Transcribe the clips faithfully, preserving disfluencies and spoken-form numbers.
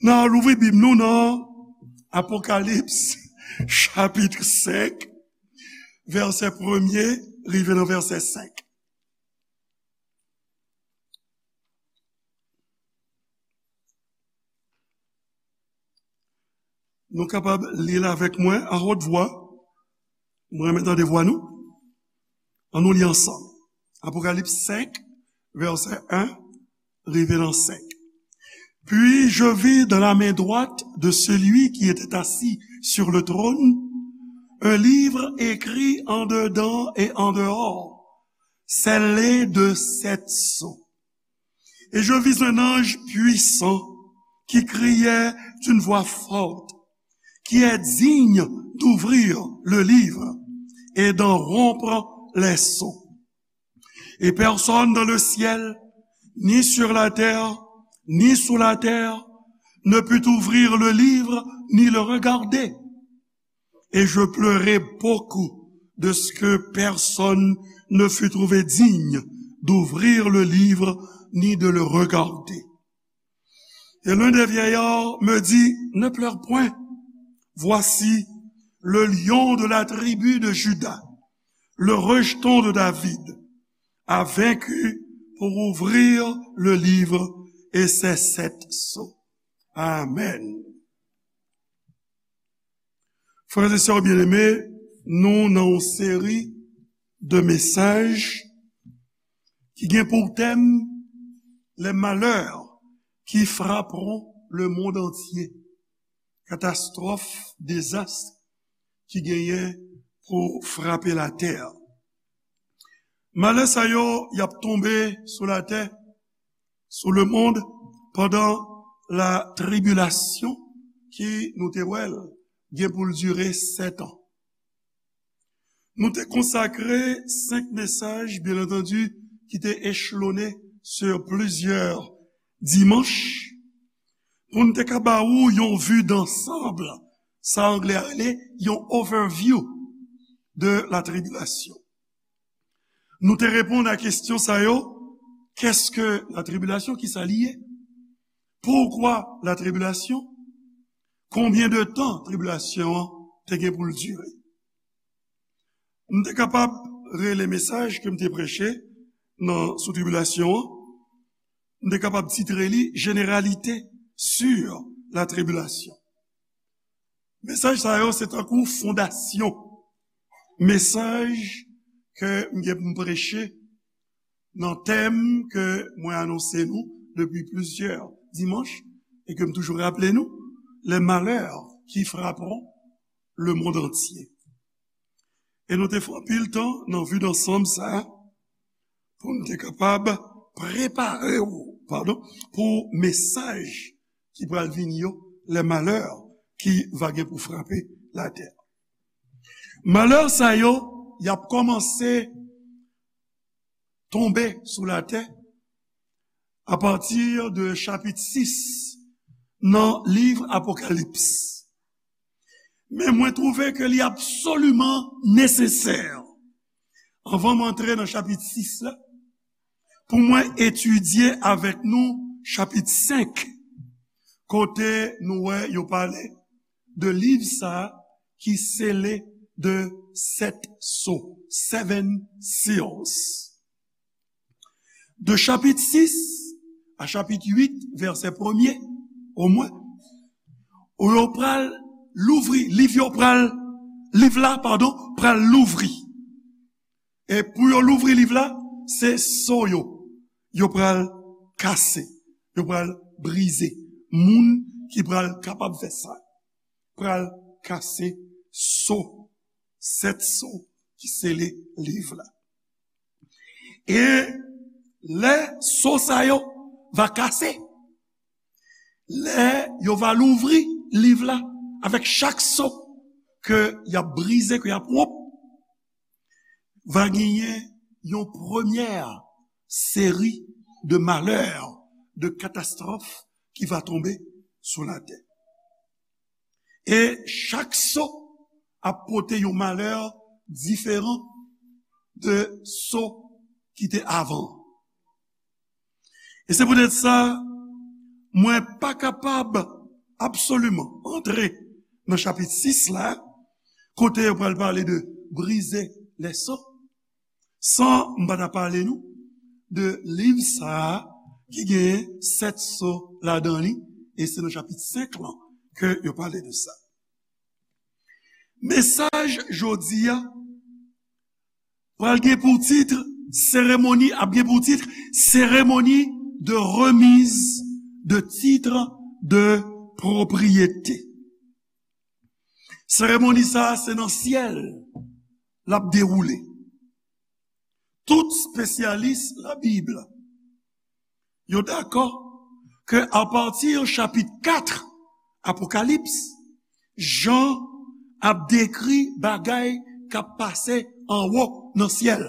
N a louvri Bib nou nan Apokalips, chapit senk, vèsè premye rive nan vèsè senk. Nou kapab li l avèk mwen a wòt vwa. Mwen renmen tande vwa nou. Ann nou li ansanm. Apokalips senk, vèsè en rive nan senk. Puis je vis dans la main droite de celui qui était assis sur le trône un livre écrit en dedans et en dehors, scellé de sept sceaux. Et je vis un ange puissant qui criait d'une voix forte, qui est digne d'ouvrir le livre et d'en rompre les sceaux. Et personne dans le ciel, ni sur la terre, ni sous la terre, ne put ouvrir le livre ni le regarder. Et je pleurai beaucoup de ce que personne ne fut trouvé digne d'ouvrir le livre ni de le regarder. Et l'un des vieillards me dit, ne pleure point. Voici, le lion de la tribu de Juda, le rejeton de David, a vaincu pour ouvrir le livre et ses sept sceaux. Amen. Frères et sœurs bien-aimés, nou nan yon seri de mesaj ki gen pou tèm les malheurs qui frapperont le monde entier. Katastwòf, dezas ki genyen pou frape latè. Malè sa yo, y ap tonbe sou latè, sou lemonn, pandan latribilasyon ki nou te wè l gen pou l dire sèt an. Nou te konsakre senk mesaj, byen antandi, ki te echelone sur plizyè dimanch, pou n te ka ba ou yon vi dansanm, sa anglè a rele yon overview de la tribulation. Nou te reponn a kesyon sa yo, qu'est-ce que la tribulation, ki sa li ye? Pourquoi la tribulation? Konbyen de tan tribilasyon an te gen pou l dire? M te kapab rele mesaj ke m te preche nan, sou tribilasyon an, m te kapab titre li Généralité sur la tribulation. Mesaj sa yo se tankou fondasyon mesaj ke m gen pou m preche nan tèm ke mwen anonse nou depi plizyè dimanch e ke m toujou raple nou, les malheurs qui frapperont le monde entier. E nou te fè anpil tan nan vi dansanm sa a pou n te kapab prepare w, padon, pou mesaj ki pral vini yo, les malheurs qui va gen pou frape latè. Malè sa yo, y ap kòmanse tonbe sou latè apati de chapit sis nan liv Apokalips. Men mwen twouve ke li absoliman nesesè, anvan m antre nan chapit sis la, pou mwen etidye avèk nou chapit senk, kote nou wè yo pale de liv sa a ki sele de sèt so, seven seals. De chapit sis a chapit uit, vèsè premye, omwen, ou yo pral louvri, liv yo pral, liv la, padon, pral louvri. E pou yo louvri liv la, se so yo, yo pral kase, yo pral brize. Moun ki pral kapab fè sa, pral kase so, sèt so ki sele liv la. E lè so sa yo va kase, lè yo va louvri liv la, avèk chak so ke y ap brize, ke y ap wonp, va genyen yon premyè seri de malè, de katastwòf ki va tonbe sou latè. E chak so ap pote yon malè diferan de so ki te avan. E se poutèt sa, mwen pa kapab absoliman antre nan chapit sis la, kote yo pral pale de brize lè so, san m pa ta pale nou de liv sa a ki genyen sèt so ladan li, e se nan chapit senk lan ke yo pale de sa. Mesaj jodi a pral gen pou tit seremoni, ap gen pou tit seremoni de remise de titre de propriété. Seremoni sa a, se nan syèl l ap dewoule. Tout espesyalis Labib yo dakò ke apati chapit kat Apokalips, Jan ap dekri bagay k ap pase anwo nan syèl.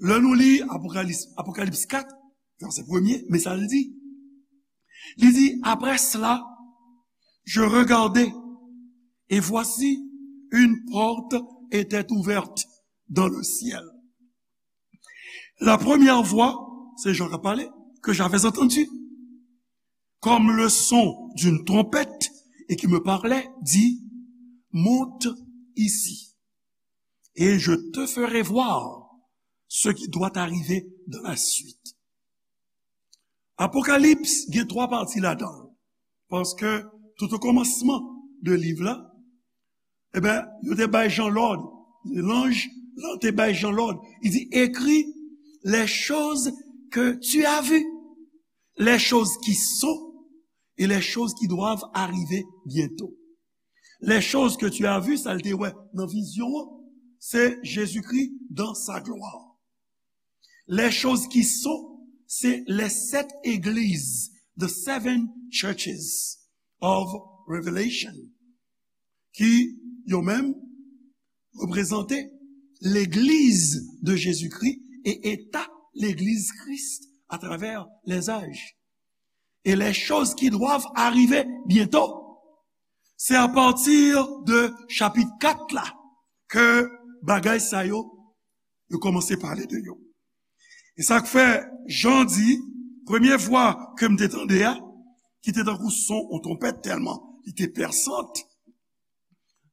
Lè nou li Apokalips, Apokalips kat, vèsè premye, men sa l di. Li di, après cela, je regardai, et voici, une porte était ouverte dans le ciel. La première voix, se Jan k ap pale, que j'avais entendue, comme le son d'une trompette, et qui me parlait, dit, monte ici, et je te ferai voir ce qui doit arriver dans la suite. Apokalips gen twa pati ladan l. Paske tout o kòmansman de liv la, e ben, yo te bay Jan lòd. Lanj lan te bay Jan lòd. Il dit, écris les choses que tu as vues, les choses qui sont et les choses qui doivent arriver bientôt. Les choses que tu as vues, sa l te wè nan vizyon an, se Jezikri dans sa gloire. Les choses qui sont, se les sept églises, the seven churches of Revelation, ki yo menm reprezante legliz de Jezikri e eta legliz Kris atravè lèzaj. Et les choses qui doivent arriver bientôt. Se apati de chapit kat la ke bagay sa yo, yo kòmanse pale de yo. E sa k fè, Jan di, premye vwa ke m te tande a, ki te tankou son yon twonpèt tèlman li te pèsant,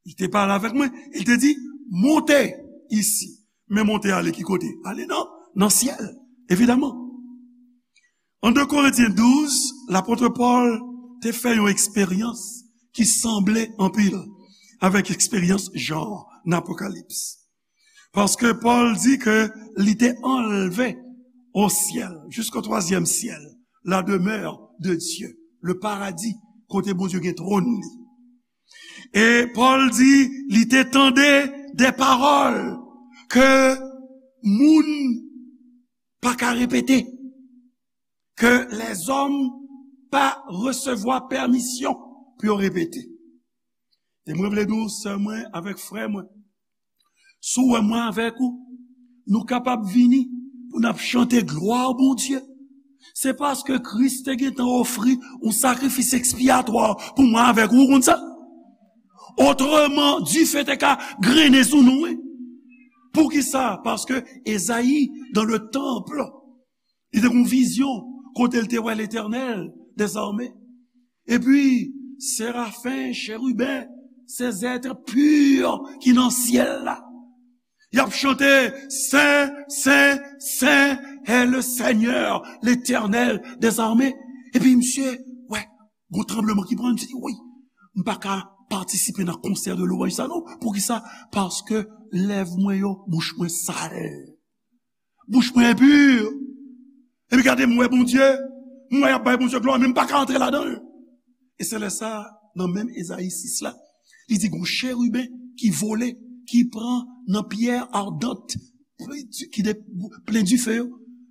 li te pale avèk mwen, li te di, monte isi. Men monte ale ki kote? Ale nan, nan syèl, evidaman. An de Korentyen douz, lapot Pòl te fè yon eksperyans ki sanble anpil avèk eksperyans Jan nan Apokalips. Paske Pòl di ke li te anlve o syèl, jusqu'au troisième ciel, la demeure de Dieu, le paradis, kote Bondye gen twòn li. E Pòl di, li te tande de pawòl ke moun pa ka repete, ke lèzòm pa resevwa pèmisyon pou yo repete. E mwen vle di w, sè mwen avèk frè mwen, si w wè mwen avèk ou, nou kapab vini pou n ap chante glwa Bondye, se paske Kris te gentan ofri yon sakrifis ekspiyatwa pou mwen avèk ou, ou konn sa? Otreman, dife te ka grennen sou nou, wi. Poukisa? Paske Ezayi, dans le temple, li te gen yon vizyon kote l te wè Letènèl dèzame. Epi, serafen, cheriben, se zèt pi ki nan syèl la. Y ap chante, Sen, Sen, Sen est le Seigneur, l'Éternel des armées. Epi misye, wè, gon tranbleman ki pran, misye di, wi, m pa ka patisipe nan konsè de lwanj sa non. Poukisa? Paske lèv mwen yo, bouch mwen sal. Bouch mwen enpi. Epi gade, m wè Bondye, m wè y ap bay Bondye glwa, men m pa ka antre ladan l. E se lè sa, nan menm Ezayi sis la, li di, gon cheriben ki vole, ki pran nan pyè ardant, ki de, plen dife yo,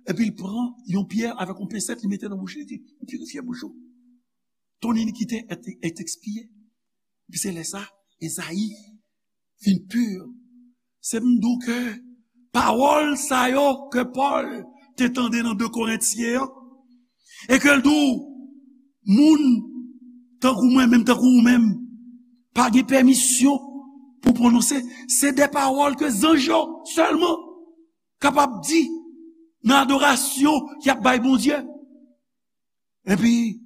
epi l pran yon pyè avèk yon pensèt, li mete nan bouch li, li di, pirifye bouch ou. Ton inikite est, est expié. Epi se lè sa, Ezayi vin pi. Se m di w ke pawòl sa yo ke Pòl te tande nan de Korentyen an, e ke l di w, moun tankou mwen menm, tankou ou menm, pa gen pèmisyon pou pwononse. Se de pawòl ke zanj yo sèlman kapab di nan adorasyon y ap bay Bondye. Epi,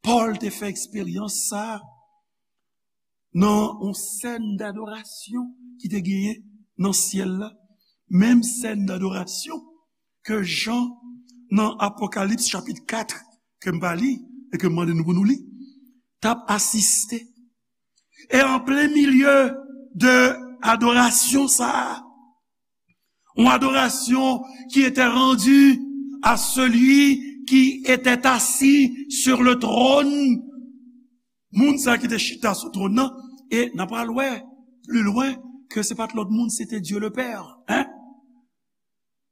Pòl te fè eksperyans sa a nan yon sèn dadorasyon ki te genyen nan syèl la. Menm sèn dadorasyon ke Jan, nan Apokalips chapit kat, ke m pa li, e ke m mande nou pou nou li, t ap asiste. E an plen milye de adorasyon sa a, yon adorasyon ki etè randi a seli ki etè asi sur le trône. Moun sa ki te chita sou twòn nan, e n a pral wè pli lwen ke se pa t lòt moun, se te Dye le Pè. Hein?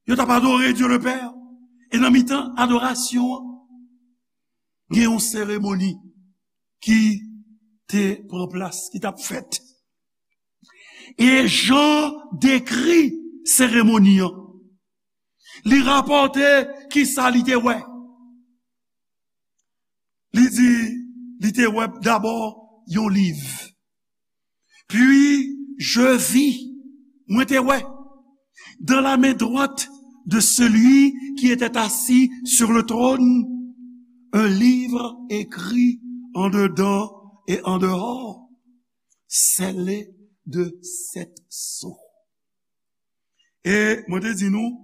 Yo t ap adore Dye le Pè. E nan mitan adorasyon an, gen yon seremoni ki te pran plas, ki t ap fèt. E Jan dekri seremoni an. Li rapòte kisa li te wè. Li di, li te wè dabò yon liv. Puis je vis, mwen te wè, dans la main droite de celui qui était assis sur le trône, un livre écrit en dedans et en dehors, scellé de sept sceaux. E mwen te di nou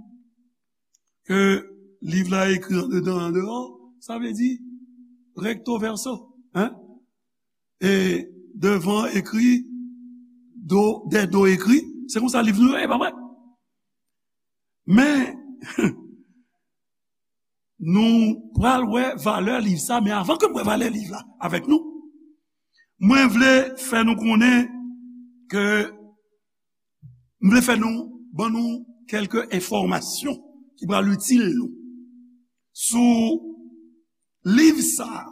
ke liv la ekri andedan, andeyò, sa vle di recto verso, hein? E devan ekri, do, dèdo ekri, se konsa liv nou yo ye, pa vre? Men, nou pral wè valè liv sa, men avan ke m wè valè liv la avèk nou, mwen vle fè nou konnen ke, m vle fè nou, ban nou kèlke enfòmasyon ki pral itil nou sou liv sa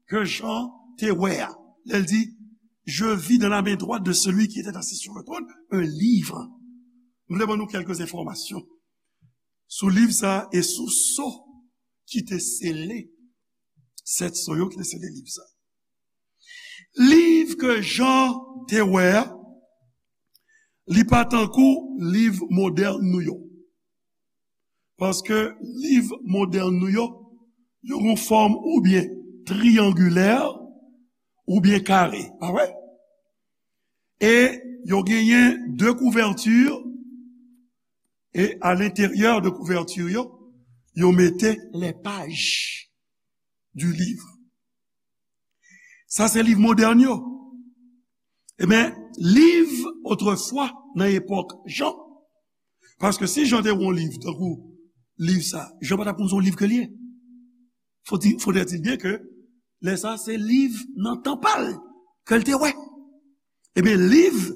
ke Jan te wè a. Lè l di, je vis dans la main droite de celui qui était assis sur le trône un livre. M vle ban nou kèlke enfòmasyon sou liv sa e sou so ki te sele, sèt so yo ki te sele liv sa. Liv ke Jan te wè a, li pa tankou liv modèn nou yo. Paske liv modèn nou yo, yo gon fòm oubyen triyangilè, oubyen kare, pa vre? E yo genyen de kouvèti, e a lenteryè de kouvèti yo, yo mete les pages du livre. Sa se liv modèn yo. Ebyen, liv otrefwa, nan epòk Jan, paske si Jan te wè yon liv, tankou liv sa, Jan pa t ap konn se yon liv ke l ye. Faut dire, faudrait-il bien que lè sa se liv nan tan pa l ke l te wè. Ebyen, liv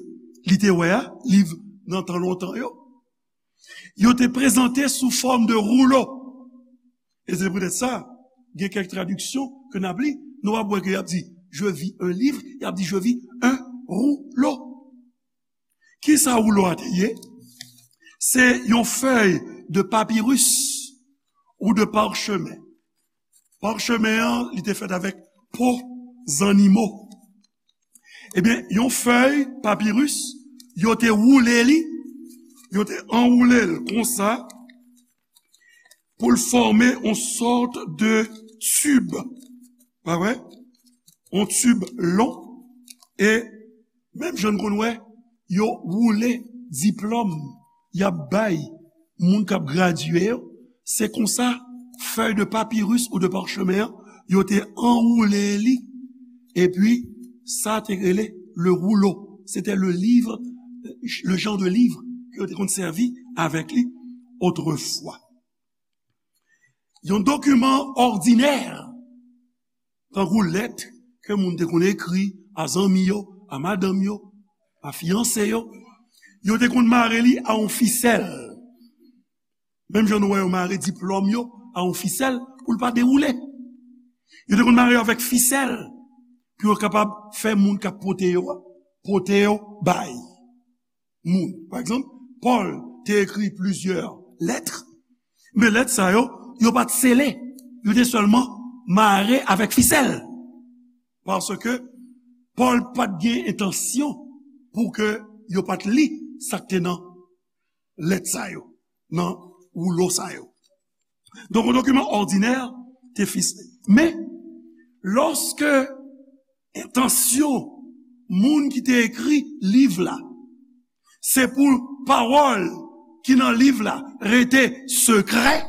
li te wè a, liv nan tan lontan yo, yo te prezante sou fòm de woulo. E se poutèt sa, gen kèk tradiksyon ke n ap li, nou ap wè ke y ap di, je vis un livre, y ap di, je vis un rouleau. Kisa woulo a te ye? Se yon fèy de papiris ou de parchemen. Parchemen an, li te fèt avèk po zannimo. Ebyen, yon fèy papiris, yo te woule li, yo te anwoule l konsa, pou l fòme yon sòt de tib. Pa vre? Yon tib lon. E menm jan n konn wè, yo woule diplòm y ap bay moun k ap gradye yo, se konsa fèy de papiris ou de parchemen an, yo te anwoule li, epi sa te rele le rouleau. C'était le livre, le genre de livre ke yo te konn sèvi avèk li otrefwa. Yon dokiman òdinè, tankou lèt ke moun te konn ekri a zanmi yo, a madanm yo, a fiyanse yo, yo te konn mare li a yon fisèl. Menm jan nou wè yo mare diplòm yo a yon fisèl pou l pa dewoule. Yo te konn mare yo avèk fisèl pou yo kapab fè moun k ap pote yo a, pote yo bay moun. Pa egzanp, Pòl te ekri plizyè lèt, men lèt sa yo, yo pa t sele, yo te sèlman mare avèk fisèl. Paske Pòl pa t gen entansyon pou ke yo pa t li sa k te nan lèt sa yo, nan woulo sa yo. Donk, yon dokiman òdinè te fisle. Men, Lòske entansyon moun ki te ekri liv la, se pou pawòl ki nan liv la rete sekrè,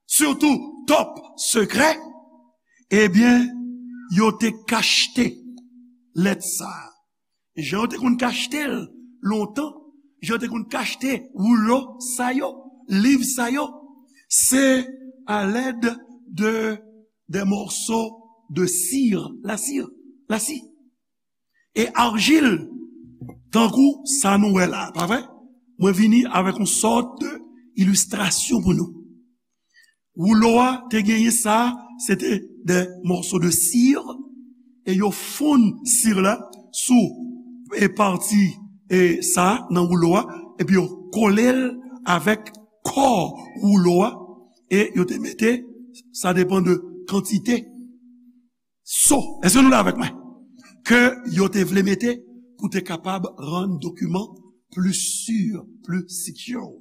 sitou top sekrè, ebyen, yo te kachte lèt sa a. Jan yo te konn kachte l lontan, jan yo te konn kachte woulo sa yo, liv sa yo, se alèd de, de mòso de sir, lasir, lasi, e arjil, tankou sa nou wè la, pa vre? Mwen vini avèk yon sòt de ilistrasyon pou nou. Woulo a te genyen sa, se te de mòso de sir, e yo fonn sir la sou e pati e sa nan woulo a, epi yo kole l avèk kò woulo a, e yo te mete, sa depann de kantite so. Èske nou la avèk mwen? Ke yo te vle mete pou te kapab rann dokiman pli si, pli secure,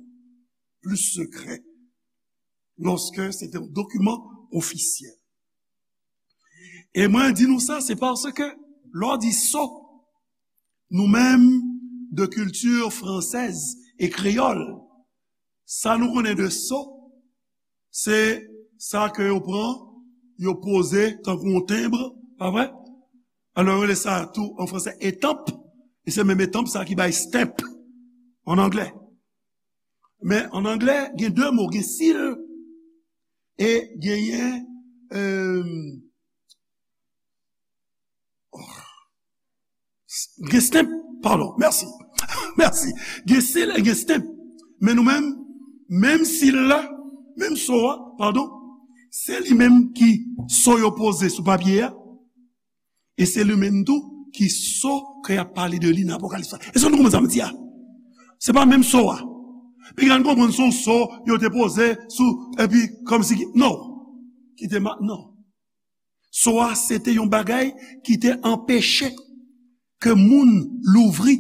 pli sekrè, lòske se te yon dokiman ofisyèl. E mwen di nou sa, se paske lè w di so, nou menm de kilti fransèz e kreyòl, sa nou konnen de so, se sa ke yo pran, yo poze tankou yon tenb, pa vre? Alò, yo rele sa tou an fransè etanp, e se menm etanp sa ki bay stamp an anglè. Men an anglè, gen de mo, gen seal e genyen, euh, gen stamp, padon, mèsi. Mèsi. Gen seal e gen stamp. Men nou menm, menm seal la, menm so a, padon, se li menm ki so yo poze sou papye a, e se li menm tou ki so ke y ap pale de li nan Apokalips la. Èske nou konprann sa m di a? Se pa menm so a. Piga n konprann se yon so yo te poze sou, epi kòmsi ki, non. Ki te ma-, non. So a, se te yon bagay ki te anpeche ke moun louvri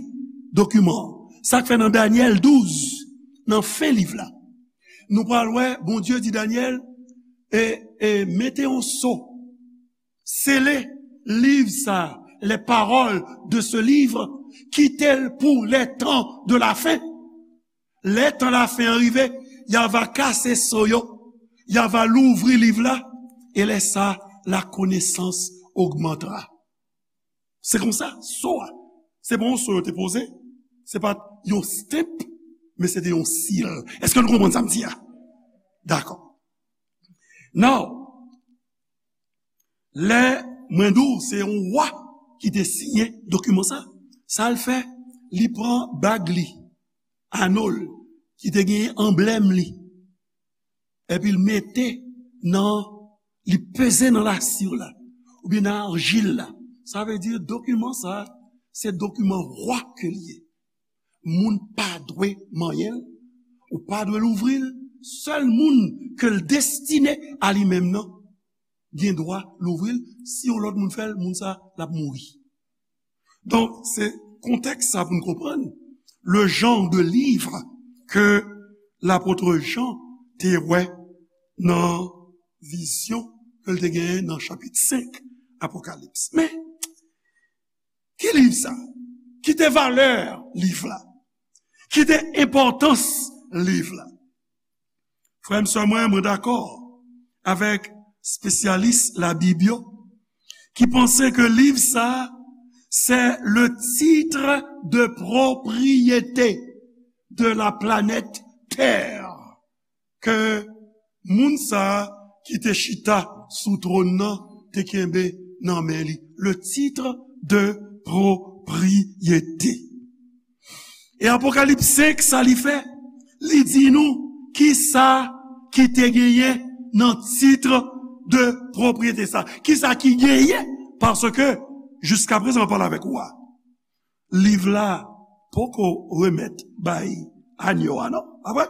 dokiman an. Sa k fè nan Danyèl douz, nan fen liv la, nou pral wè Bondye di Danyèl, e, e mete yon so, sele liv sa, les paroles de ce livre, kite l pou les temps de la fin. Lè tan lafen an rive, y a va kase so yo, y a va louvri liv la, e lè sa, la connaissance augmentera. Se konsa, so a, se pa yon so yo te poze, se pa t yon stamp, men se te yon seal. Èske nou konprann sa m di a? Dakò. Now, lè mwen di w se yon wa ki te siyen dokiman sa, sa l fè, li pran bag li, ano l, ki te genyen anblèm li, epi l mete nan, li peze nan lasir la, oubyen nan arjil la. Sa vle di dokiman sa, se dokiman wa ke l ye. Moun pa dwe manyen l, ou pa dwe louvri l. Sèl moun ke l destine a li menm nan gen dwa louvri l. Si yon lòt moun fè l, moun sa, l ap mouri. Donk, se kontèks sa pou n konprann le genre de livre que l'apôtre Jean te wè nan vizyon ke l te genyen nan chapit senk Apokalips. Men, ki liv sa? Ki te valè liv la? Ki te enpòtans liv la? Frè m, sè mwen, mwen dakò avèk espesyalis Labib yo ki panse ke liv sa a, c'est le titre de propriété de la planète Terre, ke moun sa a ki te chita sou twòn nan te kenbe nan men li. Le titre de propriété. E Apokalips senk, sa li fè? Li di nou kisa ki te genyen nan titre de propriété sa. Kisa ki genyen? Paske, jiskaprezan, mwen pale avèk ou a, liv la poko remèt bay anyo a, non? Pa vre?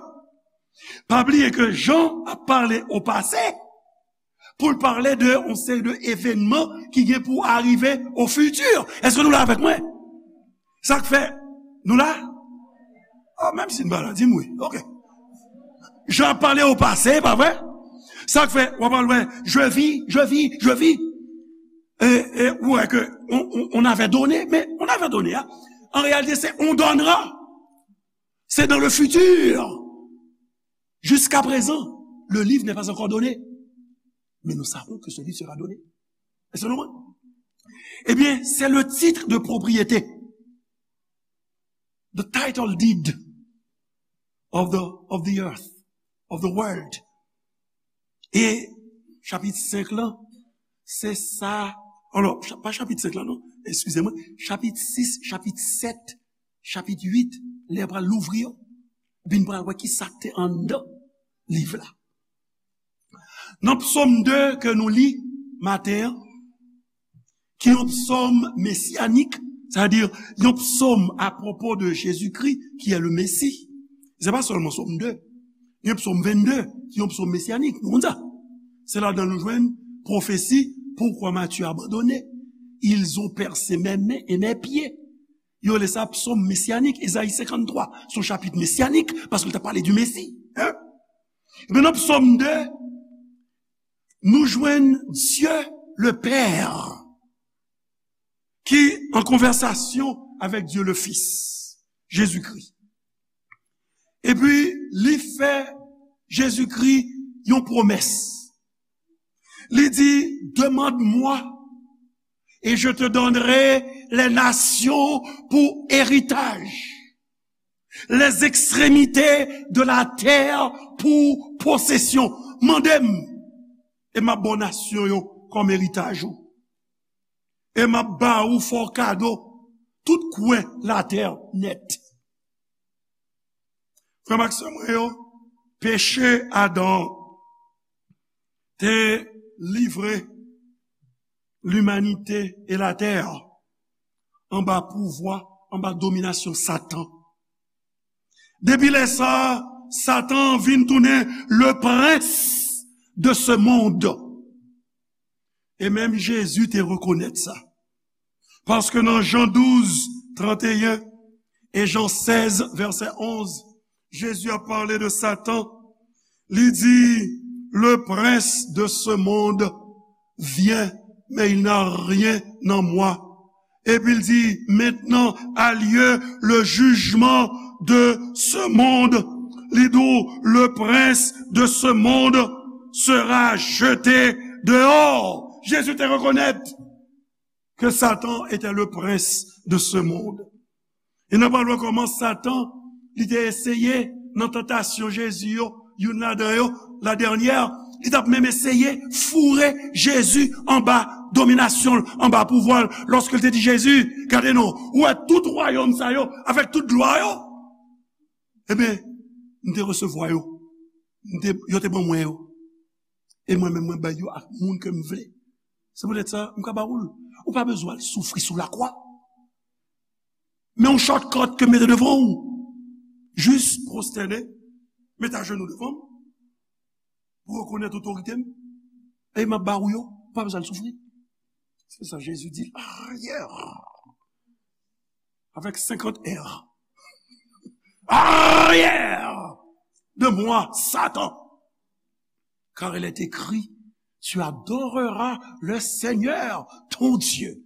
Pa bliye ke Jan ap pale o pase, pou l pale de yon seri de evènman ki gen pou arive o fiti. Èske nou la avèk mwen? Sa k fè, nou la? Ah, menm si n pa la, di m wi. Ok. Jan ap pale o pase, pa vre? Sa k fè, w ap al wè, je vis, je vis, je vis. E, e, ou wè ke on, on, on avait donné, men on avait donné, hein. En réalité, c'est on donnera. C'est dans le futur. Jusqu'à présent, le livre n'est pas encore donné. Mais nous savons que ce livre sera donné. Est-ce que nous... Eh bien, c'est le titre de propriété. The title deed of the, of the earth, of the world. E chapit senk lan, se sa, alò, cha-, pa chapit senk lan non, eskize mwen, chapit sis, chapit sèt, chapit uit, lè pral louvri yo, bin pral wè ki sa k te anndan liv la. Nan Psaume deux ke nou li maten an, ki yon psaume messianique, c'est-à-dire yon psaume à propos de Jésus-Christ, qui est le Messie. Se pa sèlman Psaume deux, yon psaume vingt-deux, ki yon psaume messianique, nou konn sa. Se ladan nou jwenn pwofesi, pourquoi m'as-tu abandonné? Ils ont percé mes mains et mes pieds. Yo rele sa psaume messianique, Ezayi cinquante-trois, se yon chapit messianique, paske l t ap pale du Messie. Hein? Ebyen, nan Psaume deux, nou jwenn Dieu le Père ki an konvèsasyon avèk Dieu le Fils, Jezikri. Epi, li fè Jezikri yon pwomès. Li di, demande-moi et je te donnerai les nations pour héritage, les extrémités de la terre pour possession. Mande m, e m ap ba w nasyon yo kòm eritaj ou. E m ap ba ou, fè w kado tout kwen latè nèt. Frè m ak sè mwen yo, peche Adan te livre limanite e latè anba pouvwa, anba dominasyon Satan. Depi lè sa a, Satan vin tounen le prince de ce monde. E menm Jezi te rekonèt sa. Paske nan Jan douz, tranteyen e Jan sèz, vèsè onz, Jezi ap pale de Satan. Li di, le prince de ce monde vient, mais il n'a rien en moi. Epi l di, maintenant a lieu le jugement de ce monde. Li di w, le prince de ce monde sera jeté dehors. Jezi te rekonèt ke Satan était le prince de ce monde. E n ap al wè kòman Satan, li te eseye nan tantasyon Jezi yo, youn ladan yo, la dènyè, li t ap menm eseye foure Jezi anba dominasyon l, anba pouvwa l, lòske l te di Jezi, gade non, ou wè tout wayòm sa yo, avèk tout glwa yo, ebyen, m te resevwa yo, m te, yo te ban mwen yo, e mwen menm mwen bay yo ak moun ke m vle. Se poutèt sa, m ka ba ou l. Ou pa bezwen al soufri sou lakwa. Men yon shortcut ke m mete devan ou. Jis pwostène, met ajenou devan m, pou rekonèt otorite m, e m ap ba ou yo, ou pa bezwen al soufri. Se sa Jezi di, arrière, avec cinquante R. Arrière de moi, Satan. Car il est écrit, tu adoreras le Seigneur, ton Dieu,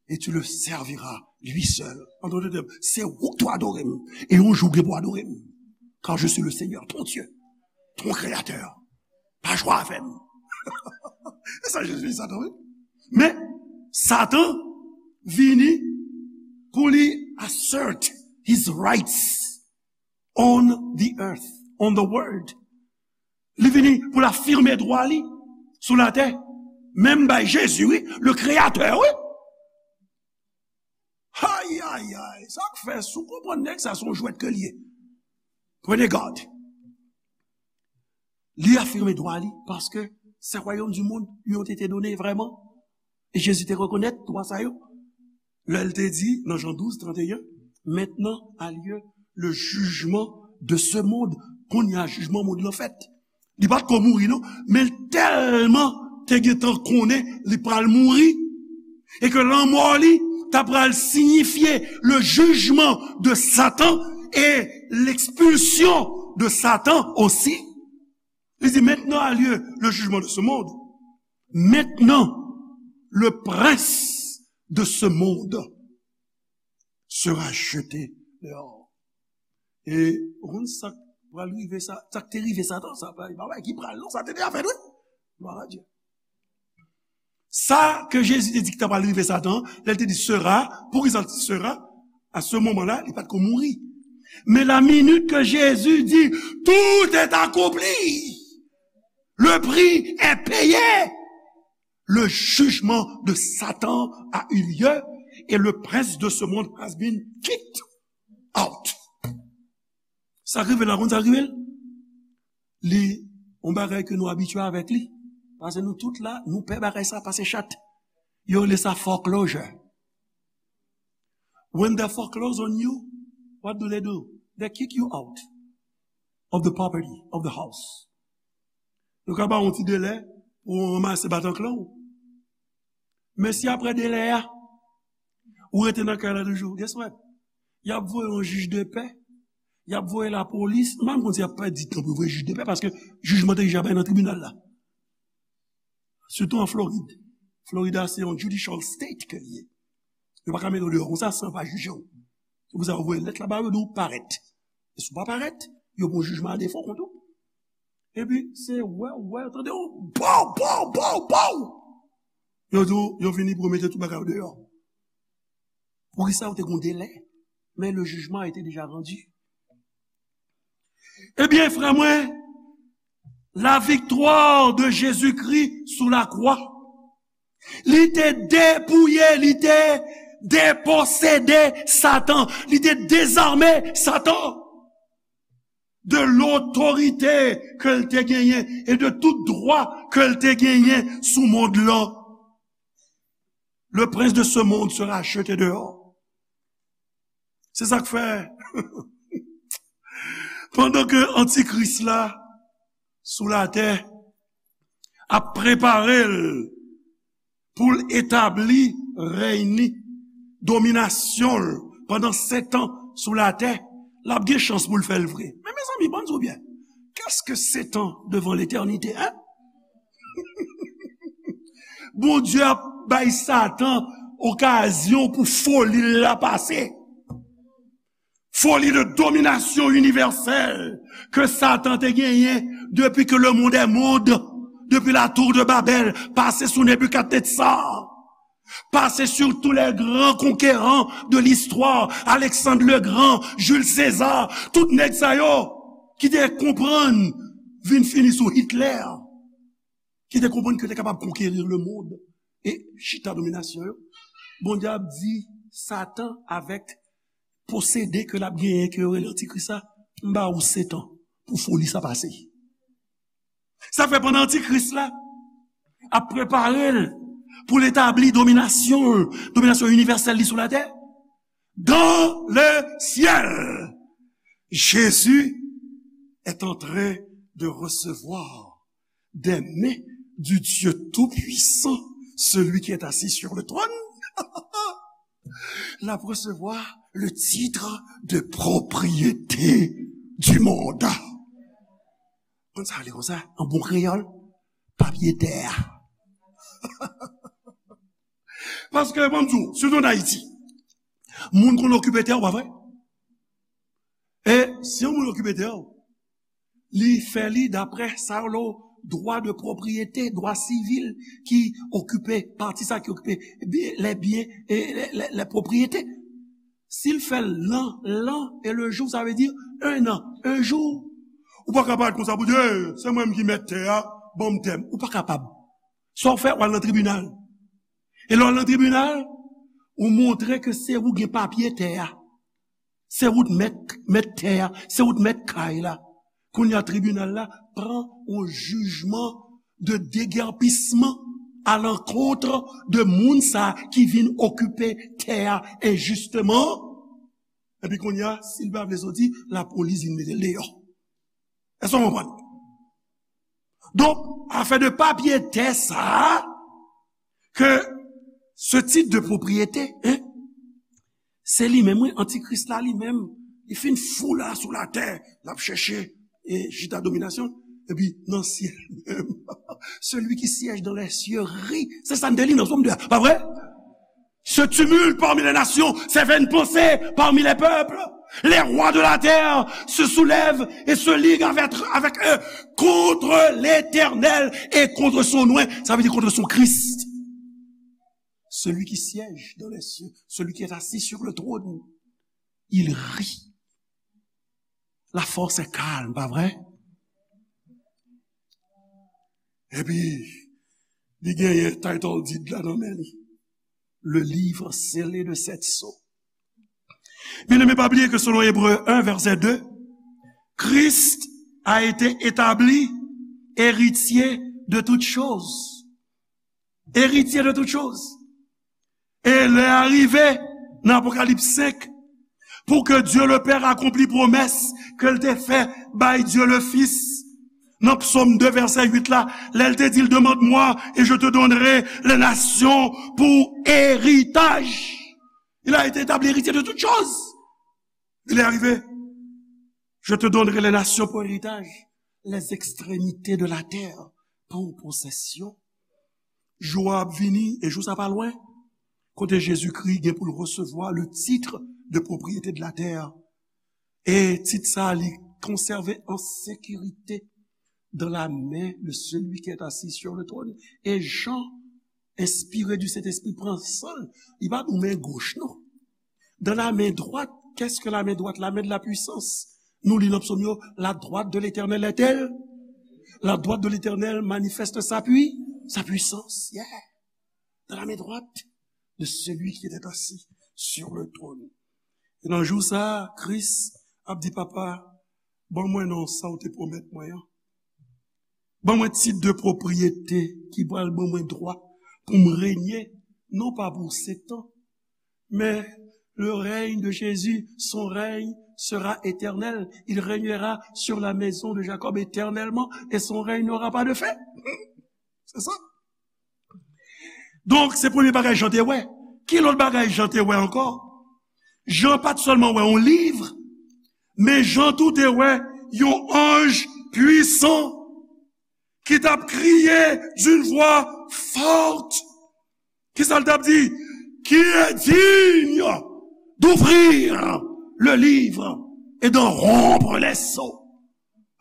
et tu le serviras, lui seul. An dòt tèm, se ou k dwe adore m, e yon jou w gen pou adore m. Car je suis le Seigneur, ton Dieu, ton Créateur. Pa jwe avè m. E sa Jezi di Satan, wi. Men, Satan vini pou li assert his rights on the earth, on the world. Li vini pou l afime dwa li sou latè. Menm bay Jezi, wi, le Créateur, wi. Ayayay, sa k fè, si w konprann nèg sa, se yon jwèt ke l ye. Prenez garde. Li afime dwa li, paske ce royaume du monde lui ont été donnés vraiment. E Jezi te rekonèt dwa sa yo. Lè l te di, nan Jan douz, tranteyen, maintenant a lieu le jugement de ce monde. Kounye a, jijman mond lan fèt. Li pa t ko mouri, non, men l tèlman te gentan konnen li pral mouri, e ke lanmò li ta pral siyifye le jugement de Satan et l'expulsion de Satan aussi. Li di, maintenant a lieu le jugement de ce monde. Maintenant, le prince de ce monde sera jeté dehors. E ou konn sa k pral rive sa, sa k te rive Satan, sa pa pa ki pral non, sa te deja fèt wi. Glwa a Dye. Sa ke Jezi te di ki ta pral rive Satan, lè l te di sera, poukisa l di sera? A se moman la, li pa t ko mouri. Men la minit ke Jezi di, tout est accompli, le prix est payé, le jugement de Satan a eu lieu et le prince de ce monde has been kicked out. Sa k rive la, konn sa k rive l? Li yon bagay ke nou abitye avèk li. Paske nou tout la, nou pè bagay sa pase chat. Yo rele sa foreclosure. When they foreclose on you, what do they do? They kick you out of the property, of the house. Yo ka ba w yon ti delè pou w ranmase batanklan w. Men si apre delè a, ou rete nan kay la toujou, guess what? Y ap voye yon jij de pè, y ap voye lapolis. M pa konn si y ap pèdi tan pou voye jij de pè, paske jijman te deja bay nan tribinal la. Sitou an Florid. Florid a se yon judicial state ke l ye. Yo pa ka mete w deyò konsa san pa jije w. Se pou sa yo voye lèt la ba yo, di w parèt. E si w pa parèt, yo pran jijman a defo kont ou. Epi se wè, wè, tande w, pow, pow, pow, pow. Yo di w, yo vini pou yo mete tout bagay yo deyò. Poukisa yo te gon delè? Men le jugement a été déjà rendu. Ebyen, frè mwen, la victoire de Jésus-Christ sous la croix, li te depouye, li te deposede Satan, li te dezame Satan de lotorite ke l te genyen e de tout dwa ke l te genyen sou mond lan. Le prince de ce monde sera jeté dehors. Se sa k fè, pandan ke antikris la sou latè ap prepare l pou l etabli rèy ni, dominasyon l pandan sèt an sou latè, l ap gen chans pou l fè l vre. Men mezanmi, ban m di w byen, qu'est-ce que sept ans devant l'éternité, hein? Bondye ap bay Satan okazyon pou foli l la pase. Foli de dominasyon inivèsèl ke Satan te genyen depi ke le monde est monde, depi la tour de Babel, pase sou Nebikadnetsar, pase sur tous les grands conquérants de l'histoire, Alexandre le Grand, Jules César, tout nèg sa yo ki te konprann vin fini sou Hitler, ki te konprann ke te kapab konkeri le monde e chita dominasyon yo. Bondye ap di Satan avèk posede ke l ap genyen, ke yo rele antikris la, m ba ou sèt an pou foli sa pase. Sa fè pandan antikris la ap prepare l pou l etabli dominasyon, dominasyon inivèsèl li sou latè, dans le ciel, Jésus est en train de recevoir des mains du Dieu Tout-Puissant, celui qui est assis sur le trône. L ap resevwa le titre de propriété du monde. Konn sa li konsa, an bon kreyòl, papye tè a. Paske, ban m di w, sitou an Ayiti, moun konn okipe tè w, pa vre? E si yon moun okipe tè w, li fè li daprè sa yo rele dwa de pwopriyete, dwa sivil ki okipe pati sa ki okipe byen, lè byen e lè, lè, lè pwopriyete. Si l fè l l'an, l'an et le jour, sa vle di un an, un jour. Ou pa ka parèt konsa pou di, "Hey, se mwen menm ki mèt tè a, ban m tè m." Ou pa kapab. Sa w fè, w al nan tribinal. E lè w al nan tribinal, ou montre ke se ou gen papye tè a. Se ou t mèt, mèt tè a, se ou t mèt kay la. Kounye a tribinal la pran yon jijman de degèpisman à l'encontre de moun sa ki vin okipe tè a enjisteman. Epi kounye a, si l pa vle soti, lapolis vin mete l deyò. Èske w konprann? Donk, afè de papye tè sa a, ke ce titre de propriété, hein, se li menm, wi, antikris la li menm, li fin fou la sou latè, l ap chèche e chita dominasyon. Epi nan syèl menm, celui qui siège dans les cieux rit. Se sa n te li nan Sòm de a, pa vre? Se tumulte parmi les nations, ces vaines pensées parmi les peuples. Les rois de la terre se soulèvent et se liguent avec, avec eux contre l'Éternel et contre son oint. Sa vle di contre son Christ. Celui qui siège dans les cieux, celui qui est assis sur le trône, il rit. La force est calme, pa vre? Epi, li genyen title deed la nan men li. Le livre scellé de sept sceaux. Bien-aimé, pa bliye ke selon Ebre en, vèsè de, Christ a été établi héritier de toutes choses. Héritier de toutes choses. E lè a rive, nan Apokalips senk, pou ke Dieu le Père akonpli pwomès ke l te fè bay Dieu le Fils. Nan Psaume deux, verset huit la, lè l te di l, demande-moi et je te donnerai les nations pour héritage. Il a été établi héritier de toutes choses. Il est arrivé. Je te donnerai les nations pour héritage, les extrémités de la terre pour possession. Jou a ap vini, e jou sa pa lwen, kote Jezikri gen pou l resevwa le titre de propriété de la terre. E tit sa, li konsève an sekirite dans la main de celui qui est assis sur le trône. E Jan, enspire du Saint-Esprit, pran san l. Li pa nou men goch, non. Dans la main droite, qu'est-ce que la main droite? La main de la puissance. Nou li nan psaume yo, la droite de l'Éternel est-elle? La droite de l'Éternel manifeste sa pui, sa puissance. Yeah. Dans la main droite de celui qui était assis sur le trône. E nan jou sa, Kris ap di, Papa, ban mwen non sa w te pwomèt mwen an. Ban mwen tit de pwopriyete ki pral ban mwen dwa pou m renye, non pa pou setan, men le règne de Jésus, son règne sera éternel. Il régnera sur la maison de Jacob éternellement et son règne n'aura pas de fin. Se sa. Donk, se premye bagay Jan te wè. Ki lòt bagay Jan te wè ankò? Jan pa t sèlman wè yon liv, men Jan tou te wè yon anj pwisan ki t ap kriye d'une voix forte. Kisa l t ap di? Qui est digne d'ouvrir le livre et d'en rompre les sceaux?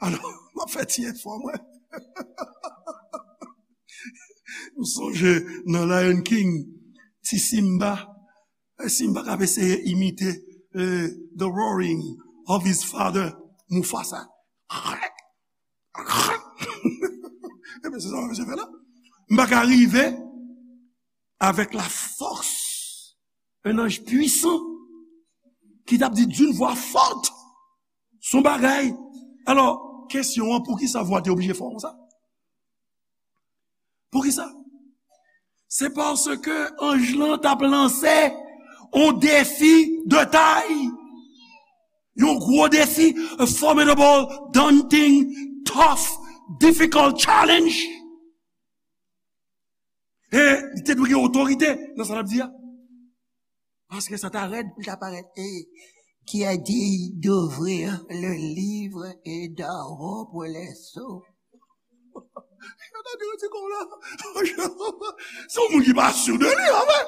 Alò, m ap fè ti efò mwen. M sonje nan Lion King, ti Simba. E Simba k ap eseye imite, eh, the roaring of his father, Mufasa. Ebyen, se sa mwen fè la. M pa ka rive avec la force, un ange puissant ki t ap di d'une voix forte, son bagay. Alò, kesyon an, poukisa vwa te oblije fò konsa? Poukisa? Se paske anj lan t ap lanse yon defi de tay. Yon gwo defi, a formidable, daunting, tough, difficult challenge. E li te dwe gen otorite nan sa l ap di a. Paske sa ta rèd pou l ta parèt. Et qui est digne d'ouvrir le livre et d'en rompre les sceaux? Yo ta di, yo di kon la. Se yon moun ki pa si de li, anfen.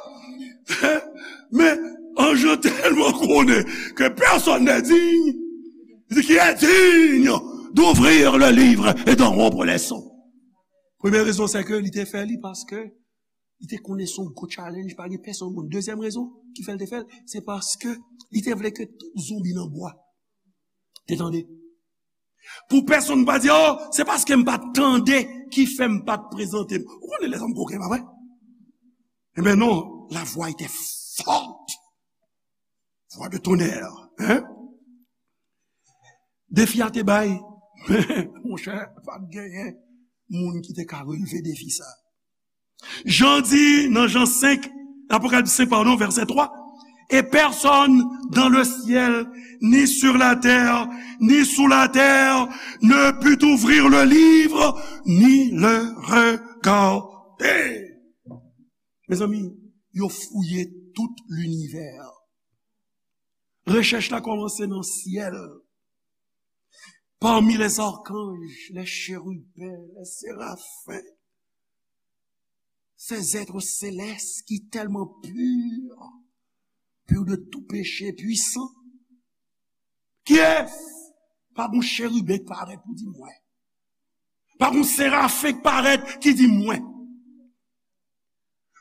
Men, anj lan tèlman konnen que personne n'est digne, li di, qui est digne d'ouvrir le livre et d'en rompre les sceaux. Premye rezon, se ke li te fè li paske li te konnen se yon gwo challenge, pa gen pèsonn moun. Dezyèm rezon ki fè l te fè l, se paske li te vle ke tout zonbi nan bwa te tande. Pou pèsonn pa di, oh, se paske m pa t tande ki fè m pa t prezante m. Ou konnen lèzòm koken, pa vre? Ebyen non, la voix était forte. Voix de tonnerre, hein? Defi a te bay, men, monchè, pa t genyen moun ki te ka relve defi sa. Jan di nan Jan senk, Apokalips senk, pardon, vèsè twa, et personne dans le ciel, ni sur la terre, ni sous la terre, ne put ouvrir le livre, ni le regarder. Mezanmi, yo fouye tout linivè. Rechèch la kòmanse nan syèl. Parmi les archanges, les chérubins, les séraphins, ces êtres célestes qui tellement purs, purs de tout péché, puissants, kiyès? Pa gon cheriben k parèt pou di mwen. Pa gon serafen k parèt ki di mwen.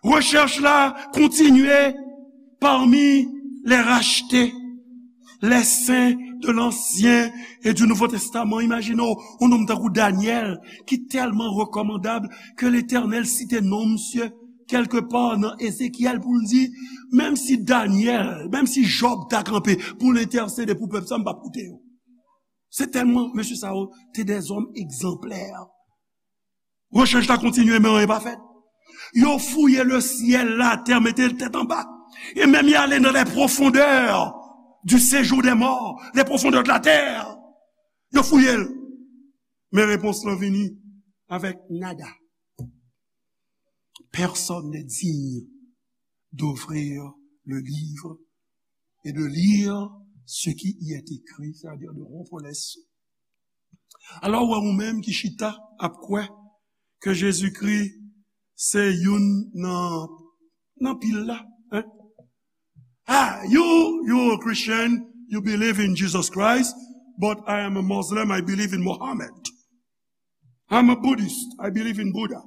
Rechèch la kontinye parmi les rachetés, les saints de l'Ancien et du Nouveau Testament. Imajine w, yon nonm tankou Danyèl, ki tèlman rekòmandab ke Letènèl site non misye kèlkepa nan Ezekyèl pou l di, menm si Danyèl, menm si Jòb ta kanpe pou l entèsede pou pèp sa, m p ap koute yo. Se tèlman mesye sa yo te dèzòm egzanplè. Rechèch la kontinye, men anyen pa fèt. Yo fouye lesyèl, latè, mete l tèt anba. E menm y ale nan les profondeurs du séjour des morts, les profondeurs de la terre. Yo fouye l. Men repons lan vini avèk nada. Personne n'est digne d'ouvrir le livre et de lire ce qui y est écrit, c'est-à-dire de rompre les sceaux. Alò, ou wè ou menm ki chita ap kwè ke Jezikri se youn nan, nan pil la, hein? Ah, you, you a Christian, you believe in Jesus Christ, but I am a Muslim, I believe in Muhammad. I'm a Buddhist, I believe in Buddha.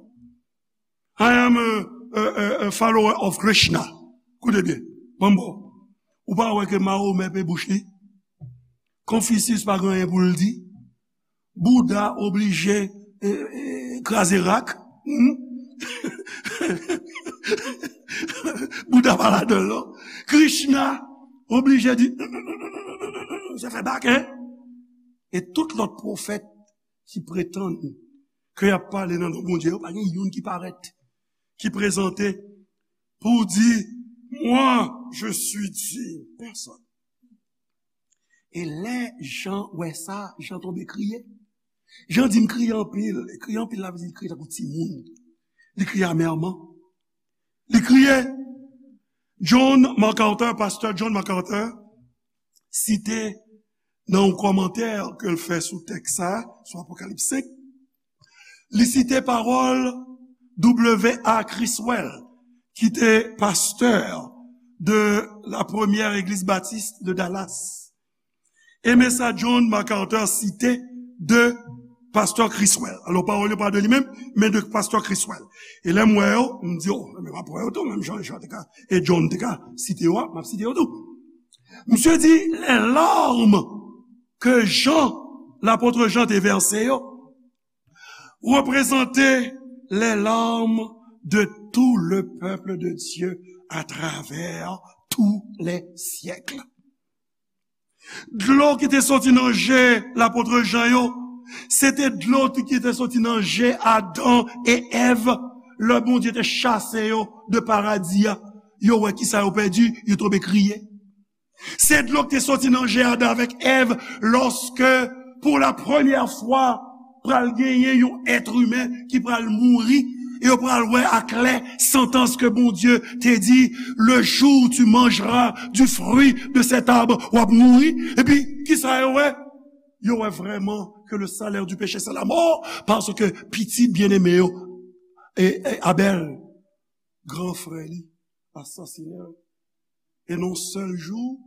I am a, a, a, a follower of Krishna. Koute byen, ban m ba w. Ou pa wè ke Mahomè pe bouch li? Konfisyis pa gen anyen pou l di. Bouda oblije, e, e, kraze rak. Hmm? Bouda pa ladan l non. Krishna oblije di, sa fè bak, hein? E tout lòt pwofèt ki pretann ke y ap pale nan non Bondye yo, pa gen youn ki parèt, ki prezante pou di, moi, je suis digne. Pèsonn. E lè Jan wè sa, Jan tonbe kriye. Jan di, m kriye anpil. E kriye anpil la vle di li kriye tankou timoun. Li kriye amèman. Li kriye. John MacArthur, pastè John MacArthur, site nan yon kòmantè ke l fè sou tèks sa, sou Apokalips senk, li site pawòl W A Criswell, ki te pastè de la première église baptiste de Dallas. E men sa John MacArthur site de pastè Criswell. Alò, pawòl yo pa de li menm, men de pastè Criswell. E lè m wè yo, m di, oh, men m ap wè yo tou, menm jan Jan te ka, e John te ka site yo a, m ap site yo tou. Misye di, les larmes que Jean, lapot Jan te vèse yo, reprezante les larmes de tout le peuple de Dieu à travers tous les siècles. Dlo ki te soti nan je lapot Jan yo, se te dlo tou ki te soti nan je Adan e Èv, lè Bondye te chase yo de paradi a. Yo wè kisa yo pèdi, yo tonbe kriye. Se dlo ki te soti nan je Adan avèk Èv, lòske, pou la premyè fwa, pral genyen yon èt imen ki pral mouri, e yo pral wè aklè santans ke Bondye te di, le jour où tu mangeras du fruit de cet arbre, w ap mouri. Epi, kisa yo wè? Yo wè vrèman que le salaire du péché, c'est la mort, paske pitit byeneme yo, e, e Abèl, gran frè li, asasinen l. E nan yon sèl jou,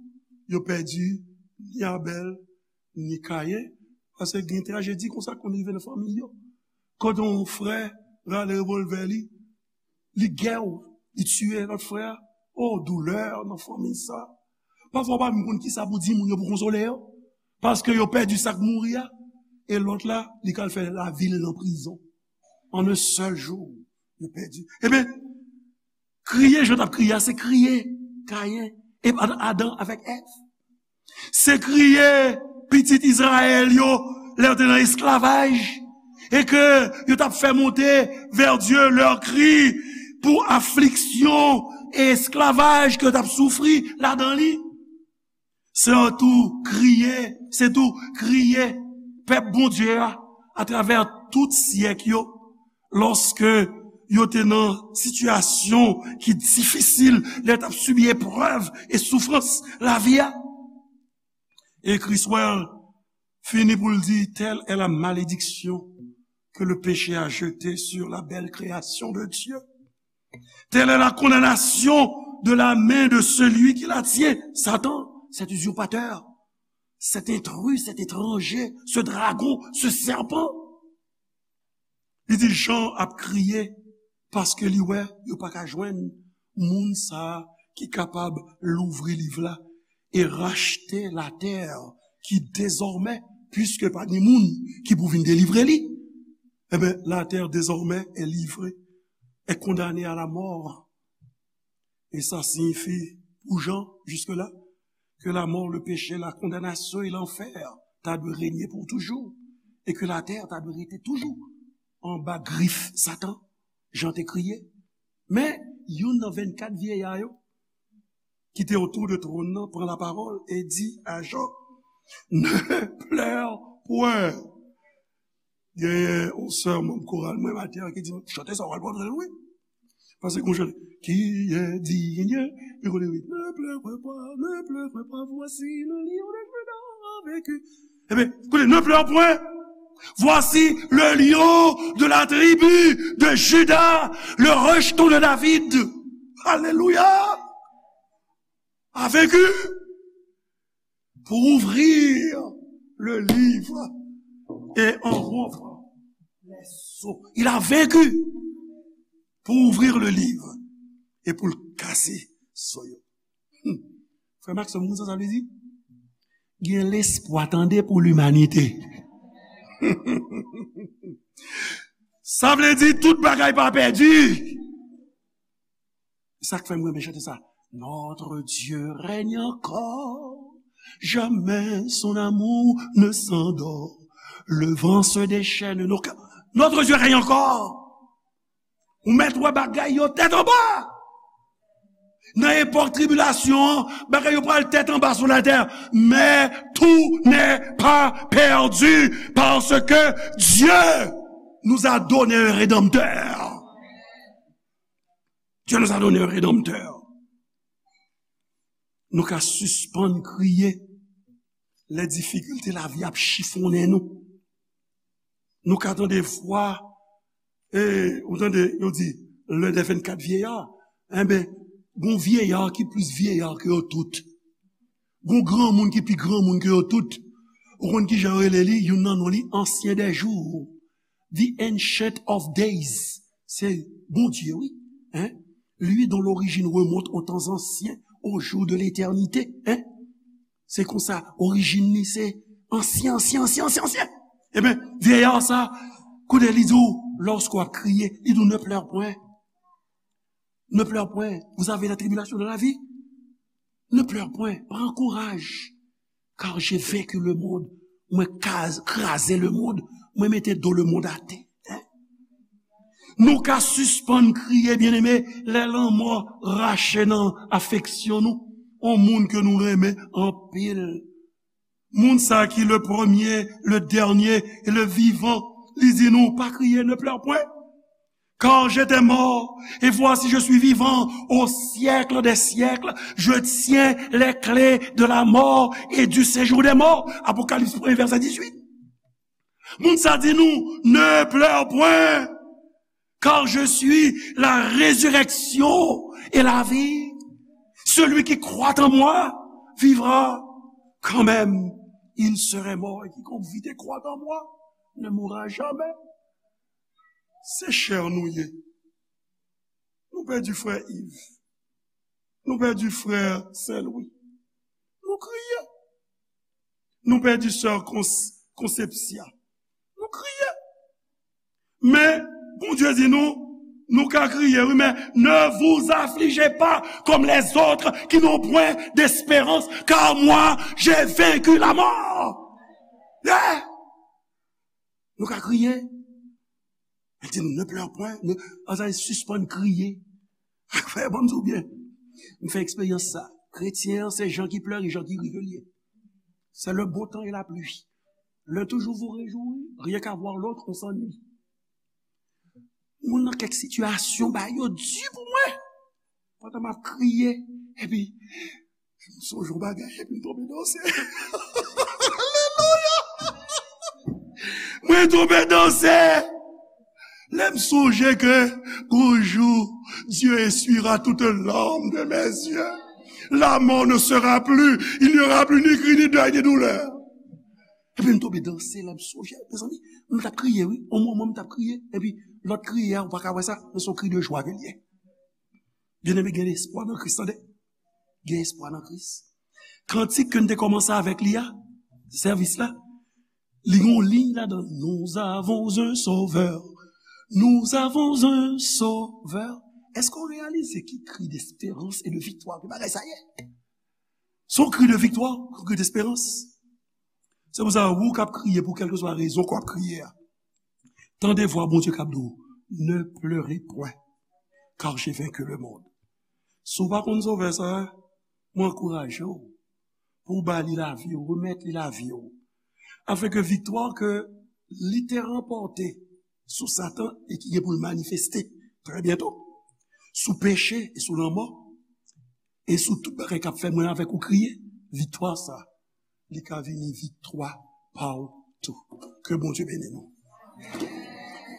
yo pèdi ni Abèl, ni Kayen, paske gen trajedi konsa konn rive nan fanmi yo. Kote yon frè rale revòlvè li, li gèw, li tiye lòt frè a. Oh, doulè nan fanmi sa. Pafwa, w pa menm konn kisa pou di moun yo pou konsole yo. Paske yo pèdi sa k mouri a. E lòt la, li ka al fè lavi l nan prizon. An yon sèl jou, yo pèdi. Ebyen, kriye Jan t ap kriye a, se kriye Kayen, e Adan avèk Èv. Se kriye pitit Izrayèl yo lè yo te nan esklavaj, e ke yo t ap fè monte vers Dieu leur cri pour affliction e esklavaj ke yo t ap soufri ladan li. Se tou kriye, se tou kriye pèp Bondye a, atravè tout syèk yo, lòske yo te nan sitiyasyon ki difisil, lè yo t ap sibi eprèv e soufrans lavi a. E Criswell fini pou l di, telle est la malédiction que le péché a jetée sur la belle création de Dieu. Telle est la condamnation de la main de celui qui l'a tué. Satan, cet usurpateur, cet intrus, cet étranger, ce dragon, ce serpent. Li di Jan ap kriye paske li wè yo pa ka jwenn moun sa a ki kapab louvri liv la e rachte latè ki dezòmè, piske pa gen moun ki pou vin delivre li, ebyen, latè dezòmè est livrée, est condamnée à la mort. E sa siyifi pou Jan, jiske la, ke lamò, le peche, la kondanasyon e lanfè ta dwe renye pou toujou, e ke latè ta dwe rete toujou anba grif Satan, Jan te kriye. Men, youn nan vennkat vyeya yo, ki te otou de twòn nan, pran lapawòl e di a Jan, Ne pleure point. Genyen yon sè manm koral mwen maten an ki di m, chante sa w pral pran l wi. Paske gon chante, qui est digne, li konnen wi, ne pleure pas, ne pleure pas, voici le lion de Juda a vaincu. Ebyen, koute, ne pleure point, voici le lion de la tribu de Juda, le rejeton de David. Alelouya! A vaincu pour ouvrir le livre et en rompre les sceaux. Il a vaincu pour ouvrir le livre et pour le casser sceaux yo. Hmm. Frè Maxon, moun sa, sa vle di? Gen lespwa, tande, pou limanite. Sa vle di tout bagay pa pèdi. Se sa k fè m renmen chante sa. Notre Dieu règne encore, jamais son amour ne s'endort. Le vent se déchaîne, nos ca-, notre Dieu règne encore. Ou mèt wè bagay yo tèt anba. Nan epòk tribilasyon an, bagay yo pral tèt anba sou latè. Mais tout n'est pas perdu parce que Dieu nous a donné un rédempteur. Dieu nous a donné un rédempteur. Nou ka sispann kriye lè difikilte lavi ap chifonnen nou. Nou ka tande vwa, e, ou tande, yo di, l'un des vingt-quatre vieillards. Enben, gon vyeya ki plis vyeya ke yo tout. Gon granmoun ki pi granmoun ke yo tout. Ou konn ki jan yo rele li? Youn nan non li, Ancien des jours. The Ancient of Days. Se Bondye, wi. Hein? Lui dont l'origine remonte aux temps anciens, aux jours de l'éternité. Hein? Se konsa, orijin li se ansyen, ansyen, ansyen, ansyen, ansyen. Ebyen, vyeya sa, koute li di w, lòske w ap kriye, li di w, ne pleure point. Ne pleure point. Vous avez la tribulation de la vie. Ne pleure point. Pran kouraj. Car j'ai vaincu le monde. Mwen kaz-, kraze lemonn. Mwen mete do lemonn atè. Hein? Nou ka sispann kriye, byeneme, lè lanmò rache nan afeksyon nou. On moun ke nou renmen anpil. Moun sa ki le premier, le dernier et le vivant. Li di nou, pa kriye, ne pleure point. Car j'étais mort, et voici je suis vivant au siècle des siècles. Je tiens les clés de la mort et du séjour des morts. Apokalips premye, vèsè dizuit. Moun sa di nou, ne pleure point, car je suis la résurrection et la vie. Celui qui croit en moi vivra quand même il serait mort. Et quiconque vit et croit en moi ne mourra jamais. Se chè nou ye. Nou pèdi frè Yves. Nou pèdi frè Saint Louis. Nou kriye. Nou pèdi sè Cons-, Concepcia. Nou kriye. Men, Bondye di nou, nou ka kriye, wi, men ne vous affligez pas comme les autres qui n'ont point d'espérance, car moi, j'ai vaincu la mort. Yeah! Nou ka kriye. Li di nou, ne pleure point, ne, ann sispann kriye. Frè, ban m di w byen. M fè eksperyans sa. Kretyen an, se jan ki plere, jan ki ri ke l ye. C'est le beau temps et la pluie. L'un toujours vous réjouit, rien qu'à voir l'autre, on s'ennuie. Moun nan kèk sitiyasyon, bagay yo di pou mwen. Pandan m ap kriye, epi, m sonje yon bagay, epi m tonbe danse. Alelouya! Mwen tonbe danse. Lè m sonje ke gon jou, Dieu essuiera toute larme de mes yeux. La mort ne sera plus, il n'y aura plus ni cri, ni deuil, ni douleur. Epi m tonbe danse, lè m sonje, mezanmi, m t ap kriye, wi. On moman, m t ap kriye. Epi, lòt kriye a, ou pa ka wè sa, men se yon kri de jwa ke l ye. Byeneme, gen espwa nan Kris, tande. Gen espwa nan Kris. Kantik ke n te kòmanse avèk li a, sèvis la, li gen yon liy ladan l, Nous avons un sauveur. Nous avons un sauveur. Èske w reyalize ki kri desperans e de viktwa ke bagay sa ye? Se yon kri de viktwa, yon kri desperans. Se pou sa, ou k ap kriye pou kèlkeswa rezon ke w ap kriye a, tande vwa Bondye k ap di w, Ne pleurez point, car j'ai vaincu le monde. Si w pa konn Sovè sa a, mwen ankouraje w pou w ba li lavi w, remèt li lavi w. Afin ke viktwa ke li te ranpòte sou Satan e ki gen pou l manifeste trè byento sou peche e sou lanmò e sou tout bagay k ap fè mwen avèk ou kriye, viktwa sa, li ka vini viktwa pa w tou. Ke Bondye beni nou.